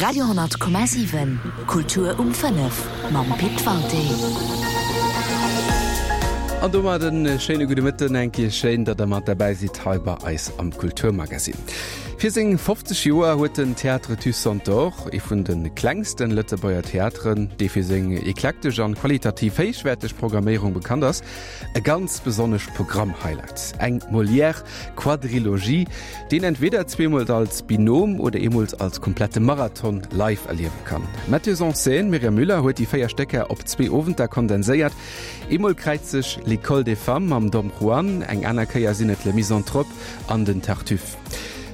Radio 10,7 Kultur um 5 mam Pit Walté. An domat en schéine gudde Mëtten, eng Kéier schéin, datt der mat derbäi sidd hei bei eis am Kulturmagazin. Fir seng 50 Joer huet den Théâtre du Centaure, ee vun de klengsten Lëtzebuerger Theateren, dee fir seng eklektesch an qualitativ héichwäerteg Programméierung bekannt ass, E ganz besonnescht Programm-Highlight, eng Molière-Quadrilogie, deen entweder zweemol als Binom oder eemol als komplette Marathon live erliewe kann. D'Metteuse en scène Myriam Müller huet déi 4 Stécker op zwee Owenter kondenséiert. Eemol kräizt sech L'École des femmes mam Dom Juan, eng aner Kéier sinn et Le Misanthrope an den Tartuffe.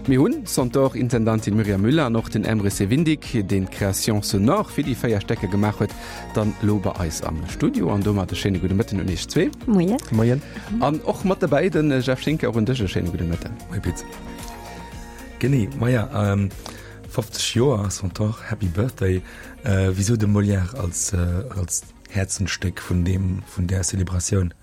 Mir hunn d'Centaure-Intendantin Myriam Müller an och den Emre Sevindik, deen d'Création sonore fir déi 4 Stécker gemaach huet, Dann lo bei eis am Studio an domat e schéine gudde Mëtten un iech zwee. Moien. Moien. An och mat derbäi den Jeff Schinker, och un dech e schéine gudde Mëtten. Moie Pit. Genee, maja, 50 Joer Centaure, Happy Birthday. Wisou de Molière als als Häerzensstéck vun deem vun där Celebratioun?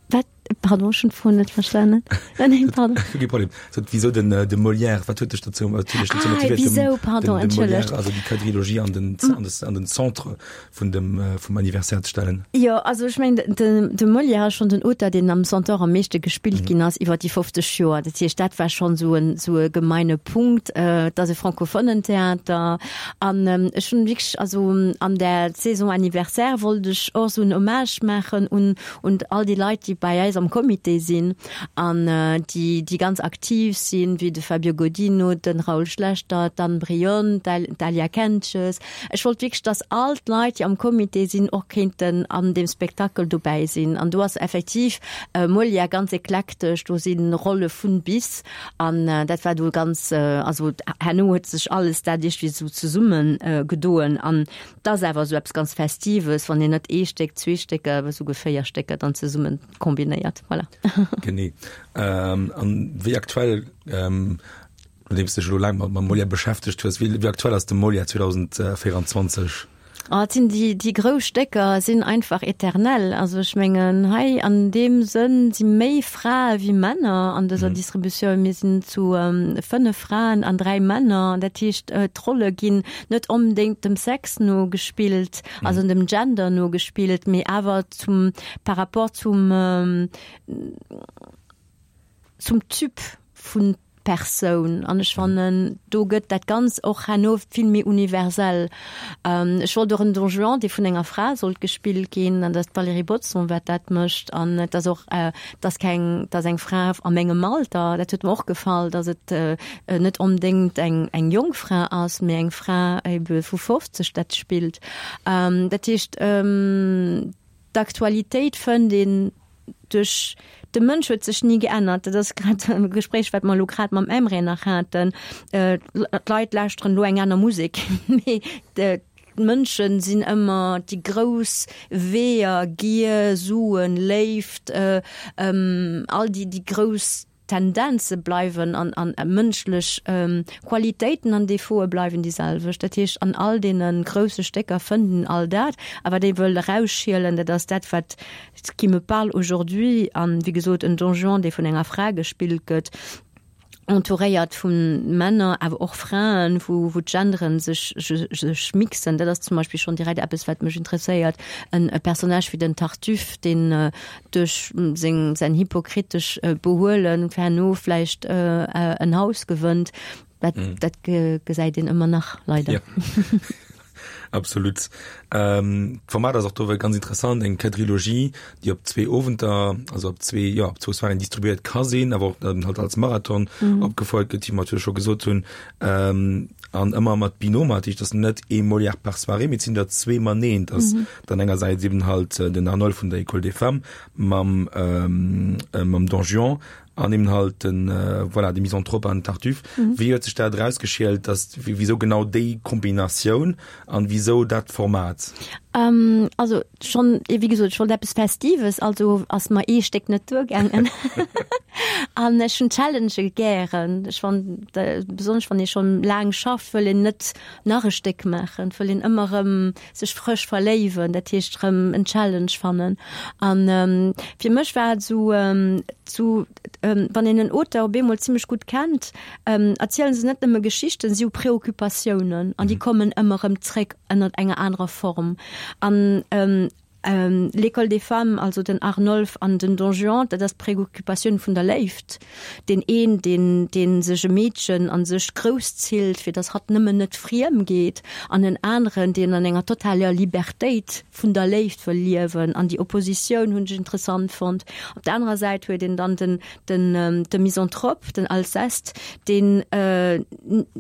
Wat? Pardon, ech hunn d'Fro net verstanen. Nee, pardon. Kee Problem. So, wieso den, de Molière, wat huet dech dozou, wat huet dech dozou Ah, motivéiert, dem, wieso, pardon, den, de Molière, entschëllegt. also déi Quadrilogie an den, an des, an den Centre vun dem, vum Anniversaire ze stellen? Jo, also ech mengen, de, de Molière ass schonn den Auteur, deen am Centaure am meeschte gespillt ginn ass iwwer déi 50 Joer. Dat heescht, dat war schonn esou en, esou e gemeine Punkt. Et ass e francophonen Theater an ech hunn wierklech, also an där Saison anniversaire wollt ech och esou en Hommage maachen un, un all déi Leit, déi bei eis am Comité sinn an déi, déi ganz aktiv sinn, wéi de Fabio Godino, de Raoul Schlechter, d'Anne Brion, d'Alia Kentges. Ech wollt wierklech, dass all d'Leit, déi am Comité sinn, och kéinten an deem Spektakel dobäi sinn. An do ass effektiv Molière ganz eklektesch, do si Rolle vun bis. An dat war do ganz, also herno huet sech alles dat iergendwéi esou zesumme gedoen. An 't ass awer esou eppes ganz Festives, wann een net ee Stéck, zwee Stécker, awer esouguer 4 Stécker dann zesummen kombinéiert. Voilà. Genee. An wéi aktuell, nodeems de dech elo laang mam Molière beschäftegt hues, wéi aktuell ass de Molière 2024? Oh, et sinn déi, déi grouss Stécker sinn einfach éternel. Also ech mengen, hei an deem Sënn si méi Frae wéi Männer an dëser Distributioun. Mir sinn zu 5 Fraen an 3 Männer. Dat heescht, d'Rolle ginn net onbedéngt dem Sex no gespillt, also dem Gender no gespillt, mee awer zum, par rapport zum, zum Typ vun Persoun. An ech fannen, do gëtt dat Ganzt och herno vill méi universell. Ech wollt och en Don Juan, dee vun enger Fra sollt gespillt ginn, an dat ass d'Valérie Bodson, wat dat mécht. An et ass och, et ass keng, et ass eng Fra a mengem Alter, dat huet mer och gefall, datt et net onbedéngt eng eng jonk Fra ass, mee eng Fra ebe vu 50 dat spillt. Dat heescht, d'Aktualitéit fënnt een duerch, de Mënsch huet sech ni geännert. Dat ass grad e Gespréich, wat mer elo grad mam Emre nach haten. D'Leit lauschteren elo eng aner Musek, mee d'Mënsche sinn ëmmer déi grouss Weeër, Gier, Suen, Léift, all déi déi grouss Tendenze bleiwen an an mënschlech Qualitéiten an Defaute bleiwen déi selwecht. Dat heescht, an all deene grousse Stécker fënnt een all dat. A wat ee wëll erausschielen, dat ass dat, wat ce qui me parle aujourd'hui an, wéi gesot, en Don Juan, dee vun enger Fra gespillt gëtt, entouréiert vu Männer, awer och Fraen, wou wou d'Genderen sech sech mixen. Dat ass zum Beispill schonn direkt eppes, wat mech interesséiert. En e Personnage wéi den Tartuffe, deen duerch seng säin hypokritesch Behuelen herno vläicht en Haus gewënnt, dat dat gesäit een ëmmer nach, leider. Ja. Absolut. D'Format ass och do ganz interessant, eng Quadrilogie, déi op zwee Owenter, also op zwee, jo, op zwou Soiréen distribuéiert ka sinn, awer och dann halt als Marathon opgefouert gëtt, wéi mer natierlech scho gesot hunn. An ëmmer mat Binôme, dat heescht, et ass net ee Molière par Soirée, mee et sinn der zwee maneen. Et ass dann engersäits eben halt den Arnold vun der École des Femmes mam, mam Don Juan An eben halt den, voilà, de Misanthrope an den Tartuffe. Wéi huet sech dat erausgeschielt, dass, wisou genau déi Kombinatioun an wisou dat Format? Also schonn, wéi gesot, ech wollt eppes Festives, also ass mer ee Stéck net duergaangen. An ech hunn Challengë gären. Ech fannen, besonnesch wann ee schonn laang schafft, wëll een net nach e Stéck maachen, wëll een ëmmer erëm sech frësch verléiwen, dat heescht erëm en Challenge fannen. An fir mech war et esou, zu wann een en Auteur op eemol zimmlech gutt kennt, erzielen se net nëmme Geschichten, si hu Preoccupatiounen an déi kommen ëmmer erëm zréck ënnert enger anerer Form. An L'École des femmes, also den Arnolphe an den Don Juan, dat ass d'Preoccupatioun vun der Léift. Deen een, deen, dee sech e Meedchen a sech grousszillt, fir datt hatt nëmmen net friem geet, an en aneren, deen an enger totaler Libertéit vun der Léift wëll liewen. An déi Oppositioun hunn ech interessant fonnt. Op der anerer Säit huet een dann den, den, de Misanthrope, den Alceste, deen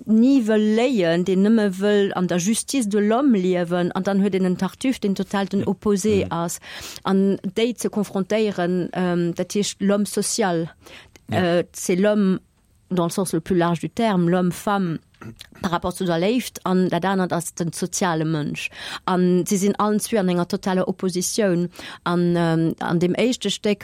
ni wëll léien, deen nëmme wëll an der Justice de l'homme liewen, an dann huet een en Tartuffe, deen total den Opposé ass. An déi ze konfrontéieren, dat heescht l'homme social, c'est l'homme dans le sens le plus large du terme, l'homme femme par rapport zu der Léift, an dat anert ass den soziale Mënsch. An si sinn allen zwee an enger totaler Oppositioun. An an deem éischte Stéck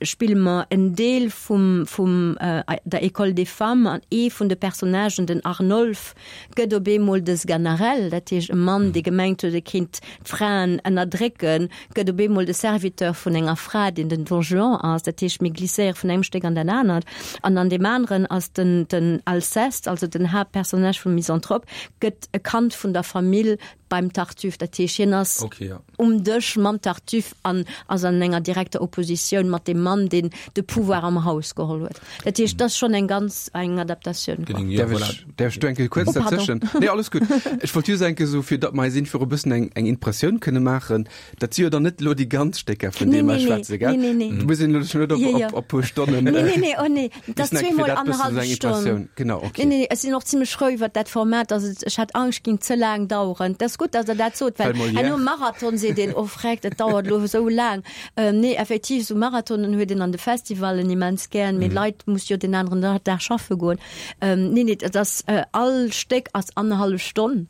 spille mer en Deel vum vum der École des femmes an ee vun de Personnagen, den Arnolphe, gëtt op eemol de Sganarelle, dat heescht e Mann, dee gemengt huet, e kéint d'Fraen ënnerdrécken, gëtt op eemol de Serviteur vun enger Fra, deen den Don Juan ass. Dat heescht, mir glisséiere vun engem Stéck an dat anert. An an deem aneren ass den den Alceste, also den Haaptpersonnage vum Misanthrope, gëtt e Kand vun der Famill beim Tartuffe. Dat heescht, hien ass okay, ja. um Dësch mam Tartuffe an ass an enger direkter Oppositioun mat deem Mann, deen de Pouvoir am Haus geholl huet. Dat heescht, dat ass schonn eng ganz eng Adaptatioun. Quoi. Ja, voilà. Därf ech do eng Kéier kuerz oh, dazwischen? Nee, alles gutt. Ech wollt just eng Kéier so, fir datt mer eis einfach e bëssen eng, eng Impressioun kënne maachen, Dat si jo dann net elo déi ganz Stécker, vun deem mer schwätzen, gell? Nee, nee, nee. Du muss een elo net op, Ja, ja. op, op puer Stonnen. Nee, nee, nee, oh nee. Dat ass Müssen eng- fir zweemol dat bëssen annerhallef esou eng Stonn. Impressioun. Genau, okay. Nee, nee, ech sinn och zimmlech frou iwwert dat Format, dass et, ech hat Angscht, ging ze laang daueren. Dat ass gutt, dass Der dat sot, well Well Molière- herno Marathon seet een, oh freck, dat dauert elo esou laang. Ähm, nee, effektiv, esou Marathonen huet een an de Festivallen immens gären, mee d'Leit musse jo den aneren Da- Dag schaffe goen. Ähm, nee, nee, dat ass, äh, all Stéck ass annerhallef Stonn.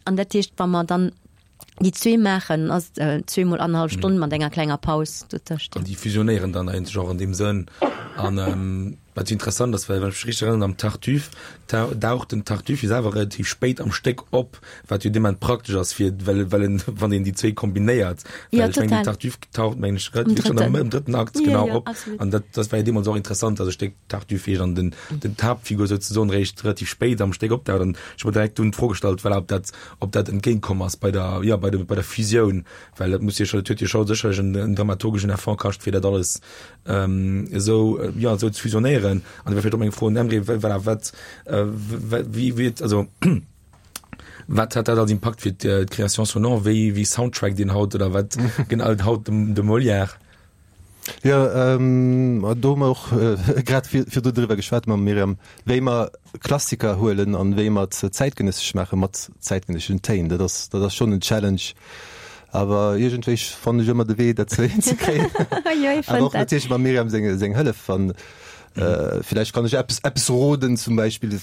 An dat heescht, wa mer dann déi zwee maachen, ass et zweemol annerhallef Stonn mat enger klenger Paus dotëscht. An déi fusionéieren dann eigentlech och an deem Sënn. An wat jo interessant ass, well wann ech mech richteg erënneren, am Tartuffe daucht den Tartuffe jo selwer relativ spéit am Stéck op, wat jo dee Moment praktesch ass, fir well well en, wann een déi zwee kombinéiert, Ja, well ech mengen, den total. Tartuffe taucht, mengen ech, Am relativ schon am drëtten. am drëtten Akt Ja, genau ja, op. absolut. An dat dat war jo deemools och interessant, dass e Stéck Tartuffe heescht an den den d'Haaptfigur souzesoen réischt relativ spéit am Stéck opdaucht. An ech hu mer direkt dunn d'Fro gestallt, voilà, ob dat ob dat entgéintkomm ass bei der, jo, bei der, bei der Fusioun, well dat muss jo scho, dat huet jo scho sécherlech en, en dramaturgeschen Effort kascht, fir dat alles esou, jo, esou ze fusionéieren. An da wär vläicht och meng Fro un Emre, voilà, wat, wéi, wéi, also wat hat dat als Impakt fir d'Création sonore, wéi, wéi soundtrackt een haut oder wat genau haut de, de Molière? Jo, do hu mer och grad virdu driwwer geschwat mam Myriam, wéi mer Klassiker huelen an wéi mer et zäitgenëssesch maache mat zäitgenësseschen Téin. Dat ass, dat ass schonn en Challenge, awer iergendwéi fannen ech ëmmer de Wee, dat hinzekréien. Awer och natierlech mam Myriam seng, seng Hëllef. An villäicht kann ech eppes, eppes roden, zum Beispill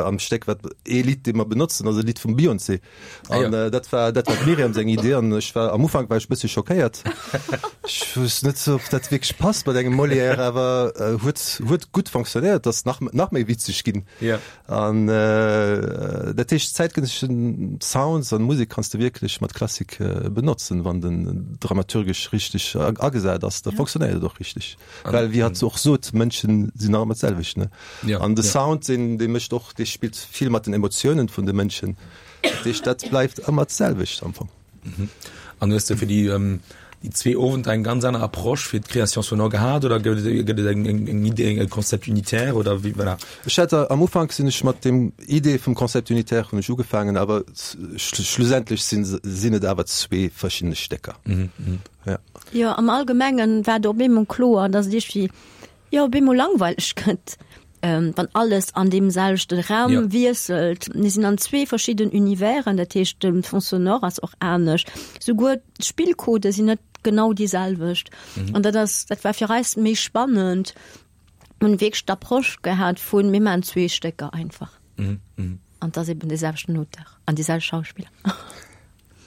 am Stéck, wat ee Lidd, dee mer benotzen, ass e Lidd vum Beyoncé. Ah, An ja. äh, dat war dat war d'Miriam seng Idee an ech war am Ufank war ech bësse schockéiert. Ech wusst net ob dat wierklech passt mat engem Molière, awer äh, huet huet gutt fonctionnéiert, ass nach nach méi witzeg ginn. Ja. An äh, dat heescht zäitgenësseschen Sounds an Musek kanns de wierklech mat Klassik äh, benotzen, wann den dramaturgesch richteg agesat ass, da fonctionnéiert et och richteg. Well wéi hatt och sot, Mënschen sinn nach ëmmer d'selwecht, ne? Ja, An de ja. Sound, deen dee mécht och, dee spillt vill mat den Emotiounen vun de Mënschen. Dat heescht, dat bleift ëmmer d'selwecht am Fong. An hues de fir déi déi zwee Owenter eng ganz aner Approche fir d'Création sonore gehat oder gëtt et gëtt et eng eng eng Idee, e Concept unitaire oder wéi, voilà? Ech hat am Ufank sinn ech mat dem Idee vum Concept unitaire hunn ech ugefaangen, awer schlussendlech sinn sinn et awer zwee verschiddene Stécker. Ja. Jo, am Allgemengen war et op eemol kloer, dass et iergendwéi, jo, op eemol langweileg gëtt, wann alles an deem selwechte Raum Ja. wiesselt. Mir sinn an zwee verschidden Universen, dat heescht, de Fond sonore ass och anescht. Souguer d'Spillcodë sinn net genau déi selwecht. An dat ass, dat war fir eis méi spannend. Mir hunn wierklech d'Approche gehat vun, mir maachen zwee Stécker einfach. An et ass eben dee selwechten Auteur an déi selwecht Schauspiller.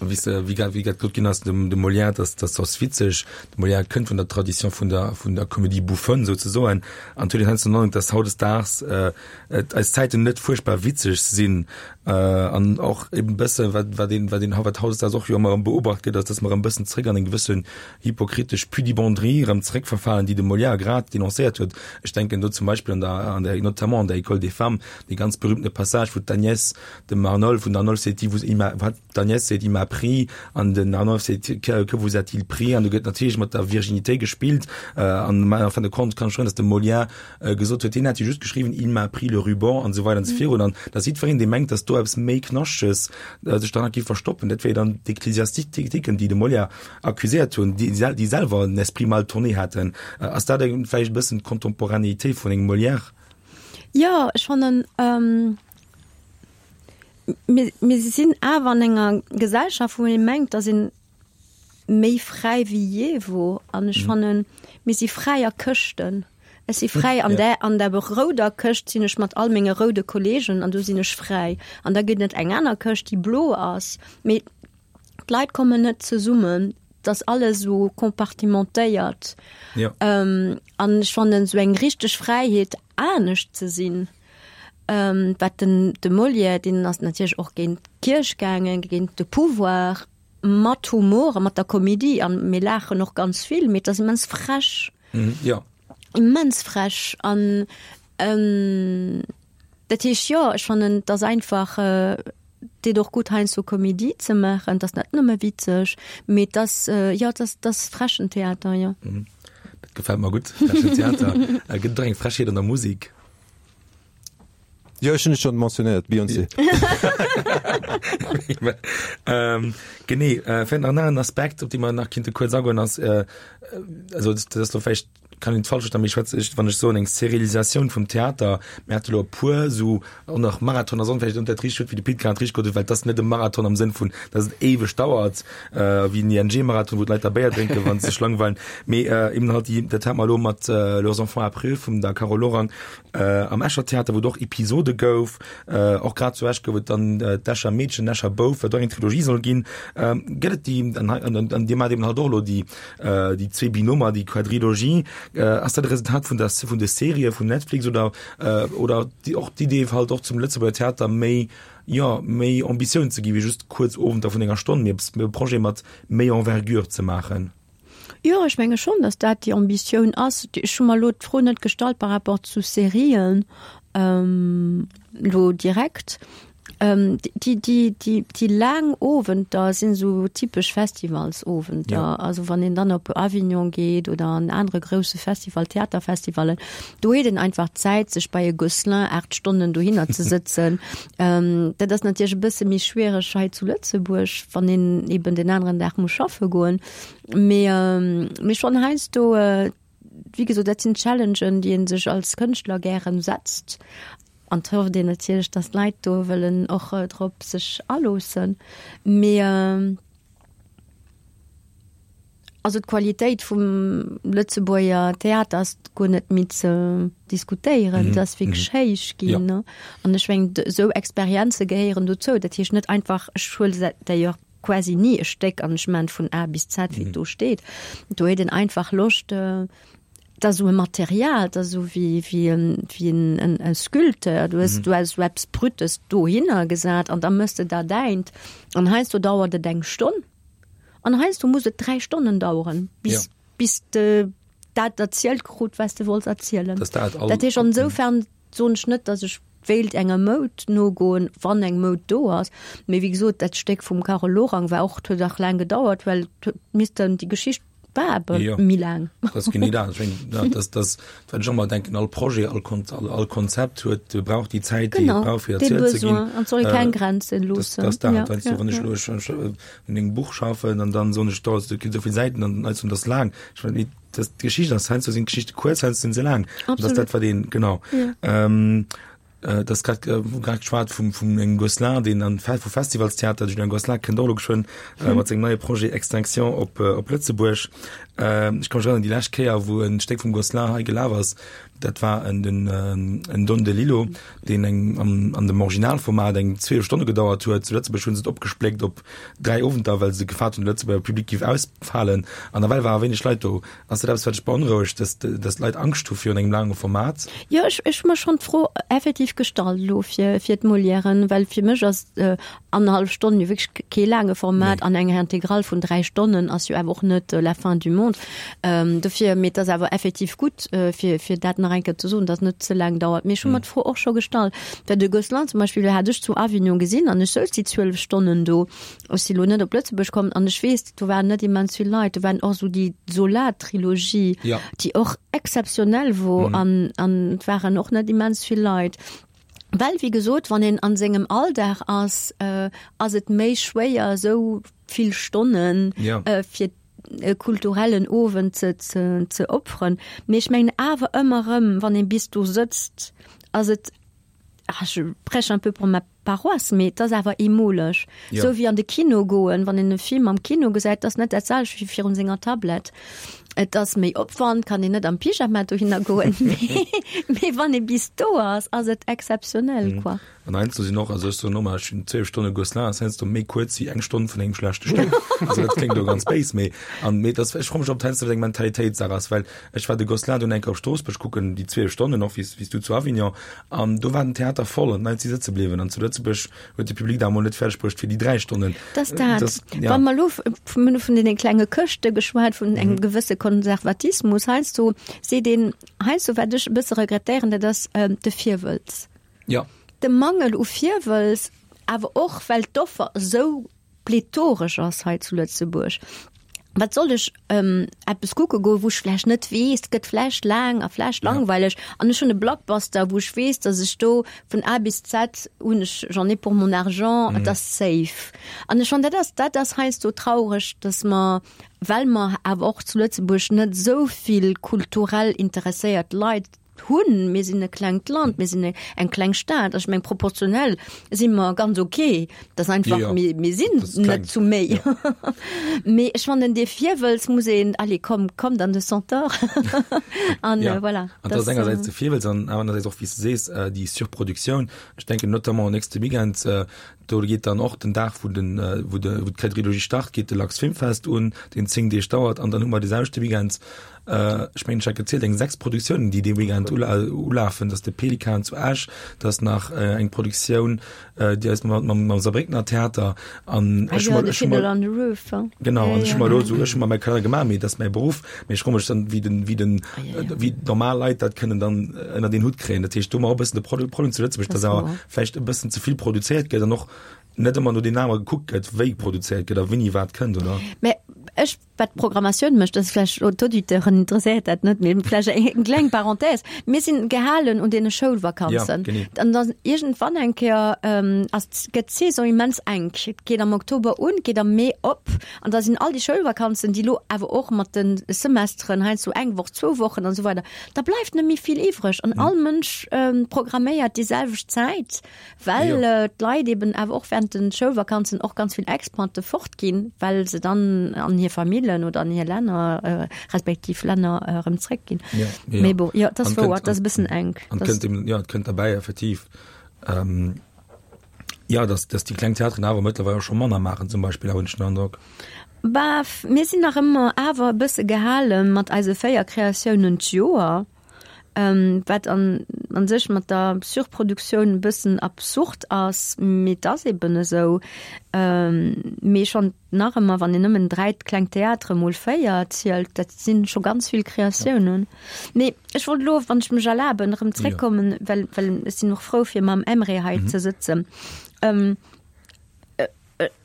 Wéi s de, wéi grad, wéi grad gesot ginn ass, dem, dem Molière, dass, dass ass witzeg. De Molière kënnt vun der Tradition vun der, vun der Comédie bouffonne souzesoen. An et huet een heiansdo den Androck, dass hautdesdaags et eis Zäiten net fuerchtbar witzeg sinn. An och eben e bësse wat, wat een, wat een, wat hautdesdaags och jo ëmmer erëm beobacht gëtt, ass, dass mer erëm e bëssen zréck an eng gewëssen hypokritesch Pudibonderie erëm zréckverfalen, déi de Molière grad dénoncéiert huet. Ech denken do zum Beispill an der, an der, notamment an der École des femmes, dee ganz berühmtene Passage, wou d'Agnès dem Arnolphe, wou den Arnolphe seet, die vous, il m'a, wat? D'Agnès seet, Il m'a pris, an den Arnolphe seet, Que, que vous a-t-il pris? An do gëtt natierlech mat der Virginitéit gespillt. An en fin de compte kann ech schwören, datt de Molière gesot huet, hien hätt jo just geschriwwen, Il m'a pris le ruban, an esou weider an esou virun. An datt jiddwereen, dee mengt, datt do eppes méi Knaschteges sech derhannert géif verstoppen, dat wier dann d'Ecclesiastiken, déi de Molière accuséiert hunn, déi, déi selwer en esprit mal tourné haten. Ass dat vläicht e bëssen d'Contemporanéité vun engem Molière? Jo, ech fannen, Mir, mir sinn awer an enger Gesellschaft, wou ee mengt, dass een méi fräi wéi jee wor. An ech fannen, mir si fräi a Këschten. Ech si fräi an där, an der rouder Këscht sinn ech mat all menge roude Kollegen an do sinn ech fräi. An da gëtt et eng aner Këscht, déi blo ass. Mee d'Leit kommen net zesummen. Et ass alles esou compartimentéiert. An ech fannen, esou eng richteg Fräiheet, anescht ze sinn, Wat den de Molière, deen ass natierlech och géint d'Kierch gaangen, géint de Pouvoir, mat Humor a mat der Komedie an mir laachen och ganz vill, mee et ass immens frech. Jo. Immens frech an dat heescht, jo, ech fannen, et ass einfach, deet och gutt heiansdo Komedie ze maachen, et ass net nëmme witzeg, mee et ass, jo, et ass, et ass frechen Theater, jo. Dat gefält mer gutt, frechen Theater. Gëtt et och eng Frechheet an der Musek? Jo, ech hunn et schonn mentionnéiert, Beyoncé. Ähm, genee, äh, vläicht nach en aneren Aspekt, op dee mer nach kinnte kuerz agoen, ass, äh, also dat ass lo vläicht, kann een falsch verstoen, mee ech schwätze, ech, wann ech soen eng Serialisatioun vum Theater, mir hate lo e puer esou och nach Marathon ass och vläicht net dat richtegt Wuert, wéi de Pit grad richteg gesot huet, well et ass net e Marathon am Sënn vun, datt et éiweg dauert, äh, wéi en ING-Marathon, wou d'Leit da Béier drénken, wa se sech langweilen, mee äh, eben halt déi, dat hat mer elo mat äh, Leurs enfants après eux vum der Carole Lorang, Am Escher Theater, wou et och Episode gouf, och grad zu Esch gouf et dann d'Escher Meedchen, den Escher Bouf, wat och eng Trilogie soll ginn. Gëtt et déi, an hei, an Dir maacht eben halt och elo déi, déi zwee Binomer, déi Quadrilogie. Ass dat e Resultat vun der, vun de Serië vun Netflix oder, oder déi och d'Idee halt och zum Lëtzebuerger Theater méi, jo, méi Ambitioun ze gi wéi just kuerz Owenter vun enger Stonn, mee eppes, e Projet mat méi Envergure ze maachen? Jo, ech menge schonn, datt dat déi Ambitioun ass. Ech hu mer elo d'Fro net gestallt par rapport zu Serien elo direkt. Déi, déi, déi, déi laang Owenter sinn esou typesch Festivalsowenter. Ja. Also wann een dann op Avignon geet oder an anere grousse Festival, Theaterfestivallen, do huet een einfach d'Zäit, sech bei e Gosselin 8 Stonnen dohinner ze sëtzen. Dat ass natierlech e bësse méi schwiereg hei zu Lëtzebuerg, wann een eben den aneren Dag muss schaffe goen. Mee, mee schonn heiansdo, wéi gesot, dat sinn Challengen, déi ee sech als Kënschtler gären setzt. An et hofft een natierlech, datt d'Leit do wëllen och drop sech aloossen. Mee also d'Qualitéit vum Lëtzebuerger Theater ass guer net méi ze diskutéieren. Et ass wierklech héich ginn. An ech mengen, esou Experienze gehéieren dozou. Dat heescht net einfach, ech huele d'ailleurs quasi ni e Stéck an ech maan vun A bis Z wéi et do steet. Do huet een einfach Loscht, et ass esou e Material, et ass esou wéi wéi en wéi en en Sculpteur, du hues du hues esou eppes Brutes dohinner gesat an da mëss de der däint an heiansdo dauert et eng Stonn an heiansdo muss et 3 Stonnen daueren bis bis de dat erzielt krut wat s de wollts erzielen. Dat heescht an esoufern soen ech net, datt ech wéilt enger Moud nogoen, wann eng Moud do ass. Mee wéi gesot, dat Stéck vum Carole Lorang war och, huet och laang gedauert, well et huet missten, déi Geschicht war awer Jo. méi laang. Dat ass genee dat. Ech mengen, ja, dat, dat, wat ech ëmmer denken, all Projet, all Kon-, all, all Konzept huet, brauch déi Zäit, déi et Genau, brauch, fir dee erzielt ze ginn. Besoin. An et soll ee keng Grenzen Dat, loossen. dat ass dat. Ja, Weißt du, ja, wann ech ja. elo, ech, ech un engem Buch schaffen an dann soen ech, do, do ginn esou vill Säiten an dann, dat ass laang. Ech mengen, dat, d'Geschicht ass, heiansdo sinn d'Geschichte kuerz, heiansdo sinn se laang. An dat ass Absolut. dat, wat een, genau. Ja. Ähm, äh, das grad, äh, grad geschwat vum, vum engem Gosselin, deen an vu Festivalstheater, de Julien Gosselin kënnt och elo geschwënn äh, mat sengem neie Projet Extinction op, äh, op Lëtzebuerg. Ech ka mech erënneren, déi lescht Kéier, wou e Stéck vum Gosselin hei gelaf ass, dat war en den en Don DeLillo, deen eng an an dem Originalformat eng 12 Stonne gedauert huet. Zu Lëtzebuerg hu se et opgespléckt op 3 Owenter, well se gefaart hunn, de Lëtzebuerger Public géif ausfalen. An nawell ware wéineg Leit do. Ass dat eppes, wat dech beonrouegt, dass dass d'Leit Angscht hu virun engem laange Format? Jo, ech ech hu mer schonn d'Fro effektiv gestallt elo fir fir d'Molièren, well fir mech ass annerhallef Stonn jo wierklech kee laange Format an eng Intégrale vun 3 Stonnen ass jo awer och net la fin du monde. Dofir, mee et ass awer effektiv gutt, fir fir dat nach eng Kéier ze soen, datt et net ze laang dauert. Mee ech hu mer d'Fro och scho gestallt, well de Gosselin zum Beispill hat ech zu Avignon gesinn an ech souz déi 12 Stonnen do. Ech si lo net op Lëtzebuerg komm an ech weess, do waren net immens vill Leit. Do waren och esou déi Zola-Trilogie, déi och exzeptionell wor an an et waren och net immens vill Leit. Well, wéi gesot, wann een an sengem Alldag ass, ass et méi schwéier esou vill Stonnen fir e kulturellen Owend ze ze ze opferen. Mee ech mengen awer ëmmer erëm, wann ee bis do sëtzt, ass et, ah je prêche un peu pour ma paroisse, mee et ass awer eemoleg. Esou wéi an de Kino goen, wann een e Film am Kino gesäit, ass net dat selwecht wéi virun senger Tablett. Et ass méi Opwand, kann een net am Pyjama dohinner goen, mee wann ee bis do ass, ass et exzeptionell, quoi. An heiansdo sinn och, also ech soen ëmmer, ech hunn 12 Stonne Gosselin ass heiansdo méi kuerz wéi eng Stonn vun engem schlechte Stéck. Also dat kléngt elo ganz béis, mee an mee dat ech froe mech, ob dat heiansdo net eng Mentalitéitssaach ass, well ech war de Gosselin dunn eng Kéier op Stroossbuerg kucken, déi 12 Stonnen och wéi s du zu Avignon, an do war den Theater voll an d'Leit si sëtze bliwwen an zu Lëtzebuerg huet de Public da mol net fäerdeg bruecht fir déi 3 Stonnen. Dass dat, das, ja. Wa mer lo mir hu vun deene klenge Këschte geschwat, vun engem mhm. gewësse Konservatismus, heiansdo seet een, heiansdo wat ech e bësse regrettéieren, dat ass ähm, de Virwëlz. Ja. De Mangel u Virwëlz, awer och well d'Offer esou plethoresch ass hei zu Lëtzebuerg. Wat soll ech ähm, eppes kucke goen, wou ech vläicht net weess, et gëtt vläicht laang a vläicht langweileg an ech hunn e Blockbuster, wou ech weess, datt ech do vun A bis Z hunn ech, j'en ai pour mon argent, et ass safe. An ech fannen, dat ass, dat ass heiansdo traureg, datt mer, well mer awer och zu Lëtzebuerg net esou vill kulturell interesséiert Leit hunn. Mir sinn e klengt Land, mir sinn eng kleng Stad. Ech meng proportionell si mer ganz okay. Dat ass einfach, ja, ja. mir sinn net zu méi. Ja. Mee ech fannen dee Virwëlz muss een, allez komm, kommt an de Centaure. An ja. äh, voilà. An dat ass engersäits de Virwëlz an anerersäits och, wéi s de sees, äh, déi Surproduktioun. Ech denken notamment nächste Weekend, äh, Do geet dann och den Dag, wou den, wou de, wou d'Quadrilogie start, geet de Lux Filmfest un, deen 10 Deeg dauert. An dann hu mer dee selwechte Weekend, ech mengen, ech hat gezielt, eng 6 Produktiounen, déi dee Weekend ulafen. Dat ass de Pelikan zu Esch, dat ass nach eng Produktioun, déi eis mam, mam, mam Saarbréckener Theater. An ech hu mer, ech hu mer, genau, an ech hu mer elo esou, ech hu mer mäi Kalenner gemaach, mee dat ass mäi Beruff. Mee ech froe mech dann, wéi den, wéi den, wéi normal Leit dat kënnen dann ënnert een Hutt kréien. Dat heescht, do hu mer och e bëssen de Problem zu Lëtzebuerg, dass awer vläicht e bëssen ze vill produzéiert gëtt an och net ëmmer no den Namer gekuckt gëtt, wéi produzéiert gëtt a wéini wat kënnt, oder? Mä ech, wat d'Programmatioun mécht, dat ass vläicht elo d'Auditeuren interesséiert dat net, mee vläicht eng kleng Parenthèse, Mir sinn gehalen un deene Schoulvakanzen. Ja, genee. An dann iergendwann eng Kéier ass, gëtt d'Saison immens enk. Et geet am Oktober un, geet am Mee op. An da sinn all déi Schoulvakanzen, déi elo awer och mat de Semesteren heiansdo eng Woch, zwou Wochen an esou weider, da bleift net méi vill iwwreg. An all Mënsch programméiert déi selwecht Zäit, well d'Leit eben awer och während de Schoulvakanzen och ganz vill Expate fortginn, well se dann an hir Famillen oder an hir Länner, respektiv Länner erëm zréckginn. Mee bon, jo, et ass wouer, et ass e bëssen enk. An et kënnt eben, jo, et kënnt derbäi effektiv. Jo, dass, dass déi kleng Theateren awer mëttlerweil och scho manner maachen zum Beispill, hunn ech den Androck. Bah, mir sinn nach ëmmer awer e bësse gehale mat eise 4 Kreatiounen d'Joer, wat an an sech mat der Surproduktioun e bëssen absurd ass, mee et ass eben esou. Mee schonn nach ëmmer, wann een nëmmen 3 kleng Theatere mol 4 zielt, dat si scho ganz vill Kreatiounen. Mee ech wollt elo, wann ech mech erlaben, erëm zréckkommen, well, well ech sinn och frou, fir mam Emre hei ze sëtzen.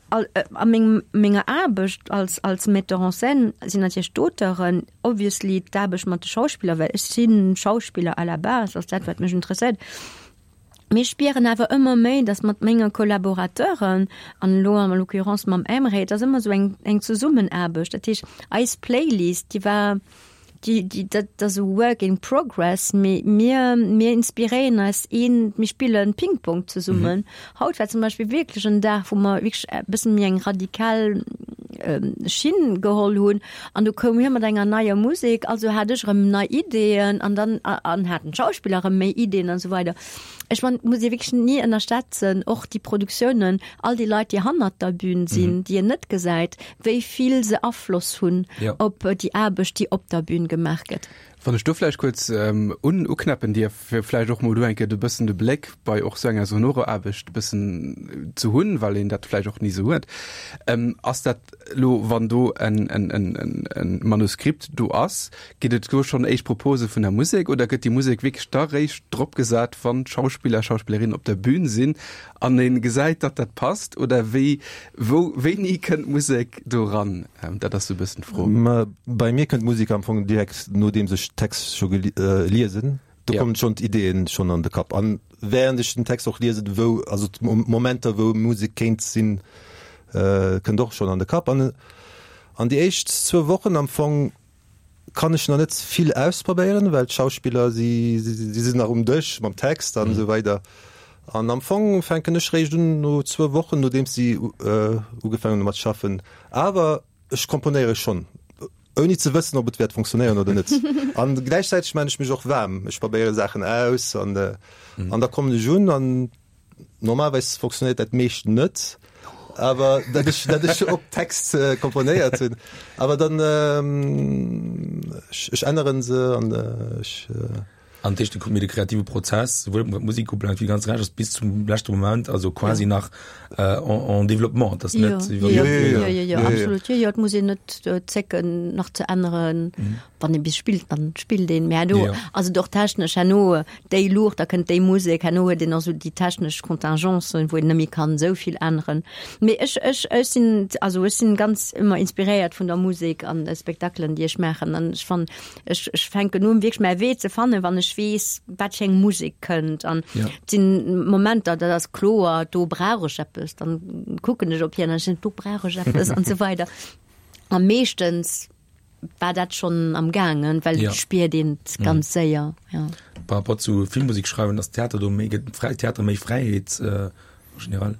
A mengem, menger Aarbecht als, als Metteur en scène sinn natierlech d'Auteuren, obviously d'Aarbecht mat de Schauspiller, well ech si Schauspiller à la base, ass dat, wat mech interesséiert. Mir spieren awer ëmmer méi, dass mat menge Collaborateuren, an elo en l'occurrence mam Emre, et ass ëmmer esou eng, eng Zesummenaarbecht. Dat heescht, eis Playlist, déi war, déi, déi, dat ass e Work in progress, mee mir, mir inspiréieren eis een, mir spillen Ping-Pong zesummen. Haut war zum Beispill wierklech en Dag, wou mer wierklech e bëssen méi eng radikal. Schinn geholl hunn. An du koum hie mat enger neier Musek, also hat ech erëm nei Ideeën an dann an haten d'Schauspiller erëm méi Ideeën an esou weider. Ech man, muss ee wierklech ni ënnerschätzen, och déi Produktiounen, all déi Leit, déi hannert der Bühn sinn, déi een net gesäit, wéi vill se Afloss hunn op déi Aarbecht, déi op der Bühn gemaach gëtt. Wann ech do vläicht kuerz un uknäppen dierf, fir vläicht och mol do eng Kéier e bëssen de Bléck bei och sou enger sonorer Aarbecht e bëssen ze hunn, well een dat vläicht och ni sou huet. Ass dat elo, wann do en, en, en, en Manuskript do ass, ginn et do schonn éischt Propose vun der Musek oder gëtt déi Musek wierklech da réischt dropgesat, wann d'Schauspiller, Schauspillerinnen op der Bühn sinn an ee gesäit, datt dat passt? Oder wéi, wou, wéini kënnt d'Musek do ran? Dat ass sou e bëssen d'Fro. Ma bei mir kënnt d'Musek am Fong direkt nodeems ech Text scho geliesen. Do kommen schonn d'Ideeën schonn an de Kapp. An während ech den Text och liesen, wou, also d'Momenter wou Musek kéint sinn, kënnt och schonn an de Kapp. An an déi éischt zwou Wochen am Fong kann ech nach net vill ausprobéieren, well d'Schauspiller si si sinn nach um Dësch mam Text an esou weider. An am Fong fänken ech réischt un no zwou Wochen, nodeems si ugefaangen hu mat schaffen. Awer ech komponéiere schonn, ouni ze wëssen, ob et wäert funktionéieren oder net. An gläichzäiteg maan ech mech och waarm, ech probéiere Saachen aus an an da kommen ech un an Normalerweis funktionéiert dat meescht net, awer dat ech, dat ech op Text komponéiert hunn. Awer dann ech, ech änneren se an ech. An dat heescht, de kreative Prozess, souwuel wat d'Musek ubelaangt wéi ganz Rescht, ass bis zum leschte Moment, also quasi nach en développement. Dat ass net wéi wann. Jo, jo, jo, jo, absolut. Jo, jo, et muss een net zécken nach ze änneren. Wann ee bis spillt, dann spillt een. Mä herno ass et och technesch, herno déi Luucht, da kënnt déi Musek, herno huet een och esou déi technesch Contingencen, wou een net méi kann esou vill änneren. Mee ech, ech, ech sinn, also ech sinn ganz ëmmer inspiréiert vun der Musek an de Spektakelen, déi ech maachen. An ech fannen, ech, ech fänken un wierklech mäi Wee ze fannen, wann ech weess, wat fir eng Musek kënnt. An et sinn Momenter, dat ass kloer, do brauch ech eppes, dann kucken ech op hien an ech soen, do brauch ech eppes an esou weider. A meeschtens war dat schonn am gaangen, well ja. spiert een mhm. ganz séier. Ja. Par rapport zu Filmmusik schreiwen, ass Theater do méi gëtt frei Theater méi Fräiheet äh, generell.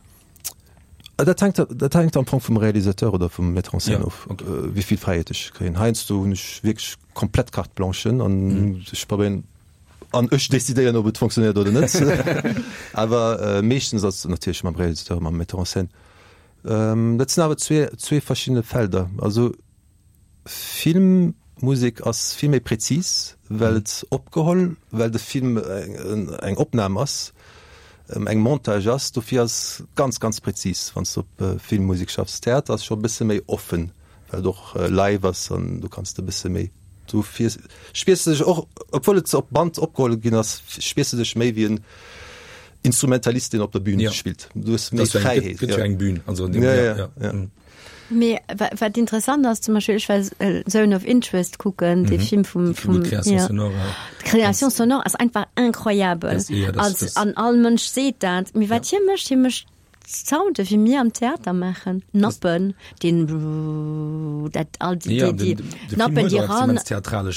Ah, dat hänkt, dat hänkt am Fong vum Realisateur oder vum Metteur en scène ja, of, okay. äh, wéi vill Fräiheet ech kréien. Heiansdo hunn ech wierklech komplett Carte blanche an mm. ech probéieren an ech decidéieren, ob et funktionéiert oder net. Awer äh, meeschtens ass natierlech mam Realisateur, mam Metteur en scène. Ähm, dat sinn awer zwee, zwee verschiddene Felder. Also Filmmusek ass vill méi präzis, well et opgeholl, well de Film eng Opnam ass, eng Montage ass. Dofir ass ganz, ganz präzis, wann s de op Filmmusek schaffs. Theater ass scho e bësse méi offen, well et och live ass an du kanns de e bësse méi, dofir spiers de dech och, obwuel et op Band opgeholl ginn ass, spiers de dech méi wéi en Instrumentalist, deen op der Bühn spillt. Du hues méi Fräiheet. Gëtt jo eng Bühn, also an deem, ja, ja. Mee wat interessant ass, zum Beispill, ech war Zone of Interest kucken, dee Film vum, vum, Création sonore, ja. D'Création sonore ass einfach incroyabel. Als, an all Mënsch seet dat. Mee wat hie mécht, hie mécht Sounde wéi mir am Theater maachen, Nappen, deen dat all déi, déi, déi Nappen, déi ran. Total,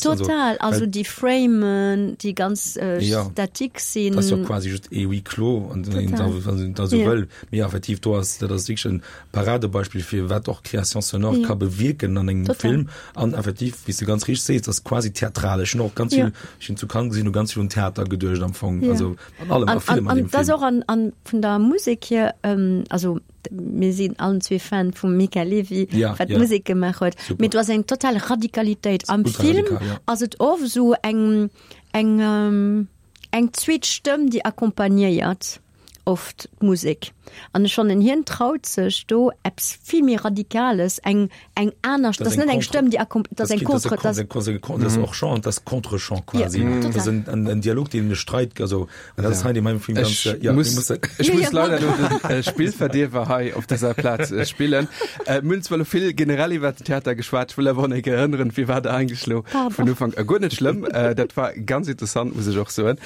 total. Also déi Framen, déi ganz statik sinn. Dat ass jo quasi just e Huis clos, an wann een dat esou wëll. Mee effektiv, do ass, dat ass wierklech en Paradebeispill fir wat och Création sonore ja. ka bewierken an engem Total. Film. An effektiv, wéi s de ganz richteg sees, das quasi theatralesch. Ech hunn och ganz ja. vill, ech hunn zu Cannes gesinn, hu ganz vill un Theater geduecht am Fong. Ja. Also an allem, an, a villem an, an dem Film. Das och an, an vun der Musek hier, ähm, also mir sinn allen zwee Fan vum Mika Levi, ja, wat ja. Musek gemaach huet. Mee du ass eng total Radikalitéit. Am Film radikal, ja. ass et oft so eng, eng, ähm, eng zweet Stëmm, déi accompagnéiert. oft d'Musek. An ech fannen, hien traut sech do eppes vill méi Radikales, eng, eng aner, dat ass net eng Stëmm, déi accom-, dat ass eng Contre, dat ass och Chant, dat ass Contre-chant quasi. Dat ass en Dialog, deen e Streit, also, an dat ass hei an deem Film ganz, ja, mir mussen. Ech muss leider elo de Spillverdierwer hei op dëser Plaz spillen. Mir hunn zwar elo vill generell iwwert den Theater geschwat, ech wëll awer och nach eng Kéier erënneren, firwat eigentlech elo vun Ufank u. Guer net schlëmm, dat war ganz interessant, muss ech och soen.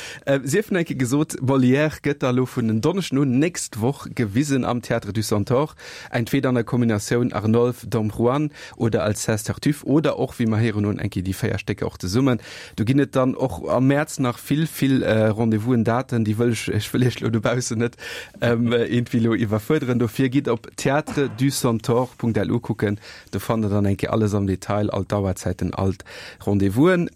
Sief nach eng Kéier gesot, Molière gëtt da elo vun en. Donneschden un, nächst Woch, gewisen am Théâtre du Centaure, entweder an der Kombinatioun Arnolphe, Dom Juan oder Alceste, Tartuffe oder och, wéi mer héieren hunn, eng Kéier déi 4 Stécker och zesummen. Do ginn et dann och am Mäerz nach vill, vill Rendez-vousen, Daten, déi wëll ech, ech wëll Iech elo dobaussen net iergendwéi elo iwwerfuerderen. Dofir gitt op theatreducentaure.lu kucken, Do fannt der dann eng Kéier alles am Detail, all d'Auerzäiten, all d'Rendez-vousen.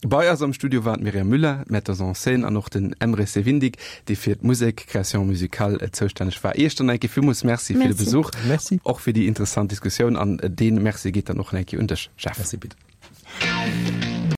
Bei eis am Studio waren d'Myriam Müller, d'Metteuse en scène, an och den Emre Sevindik, dee fir d'Musek, Création musicale, zoustänneg war. Iech dann eng Kéier villmools Merci fir de Besuch, Merci. och fir déi interessant Diskussioun. An dee Merci geet dann och eng Kéier un dech, Jeff. Merci, Pit.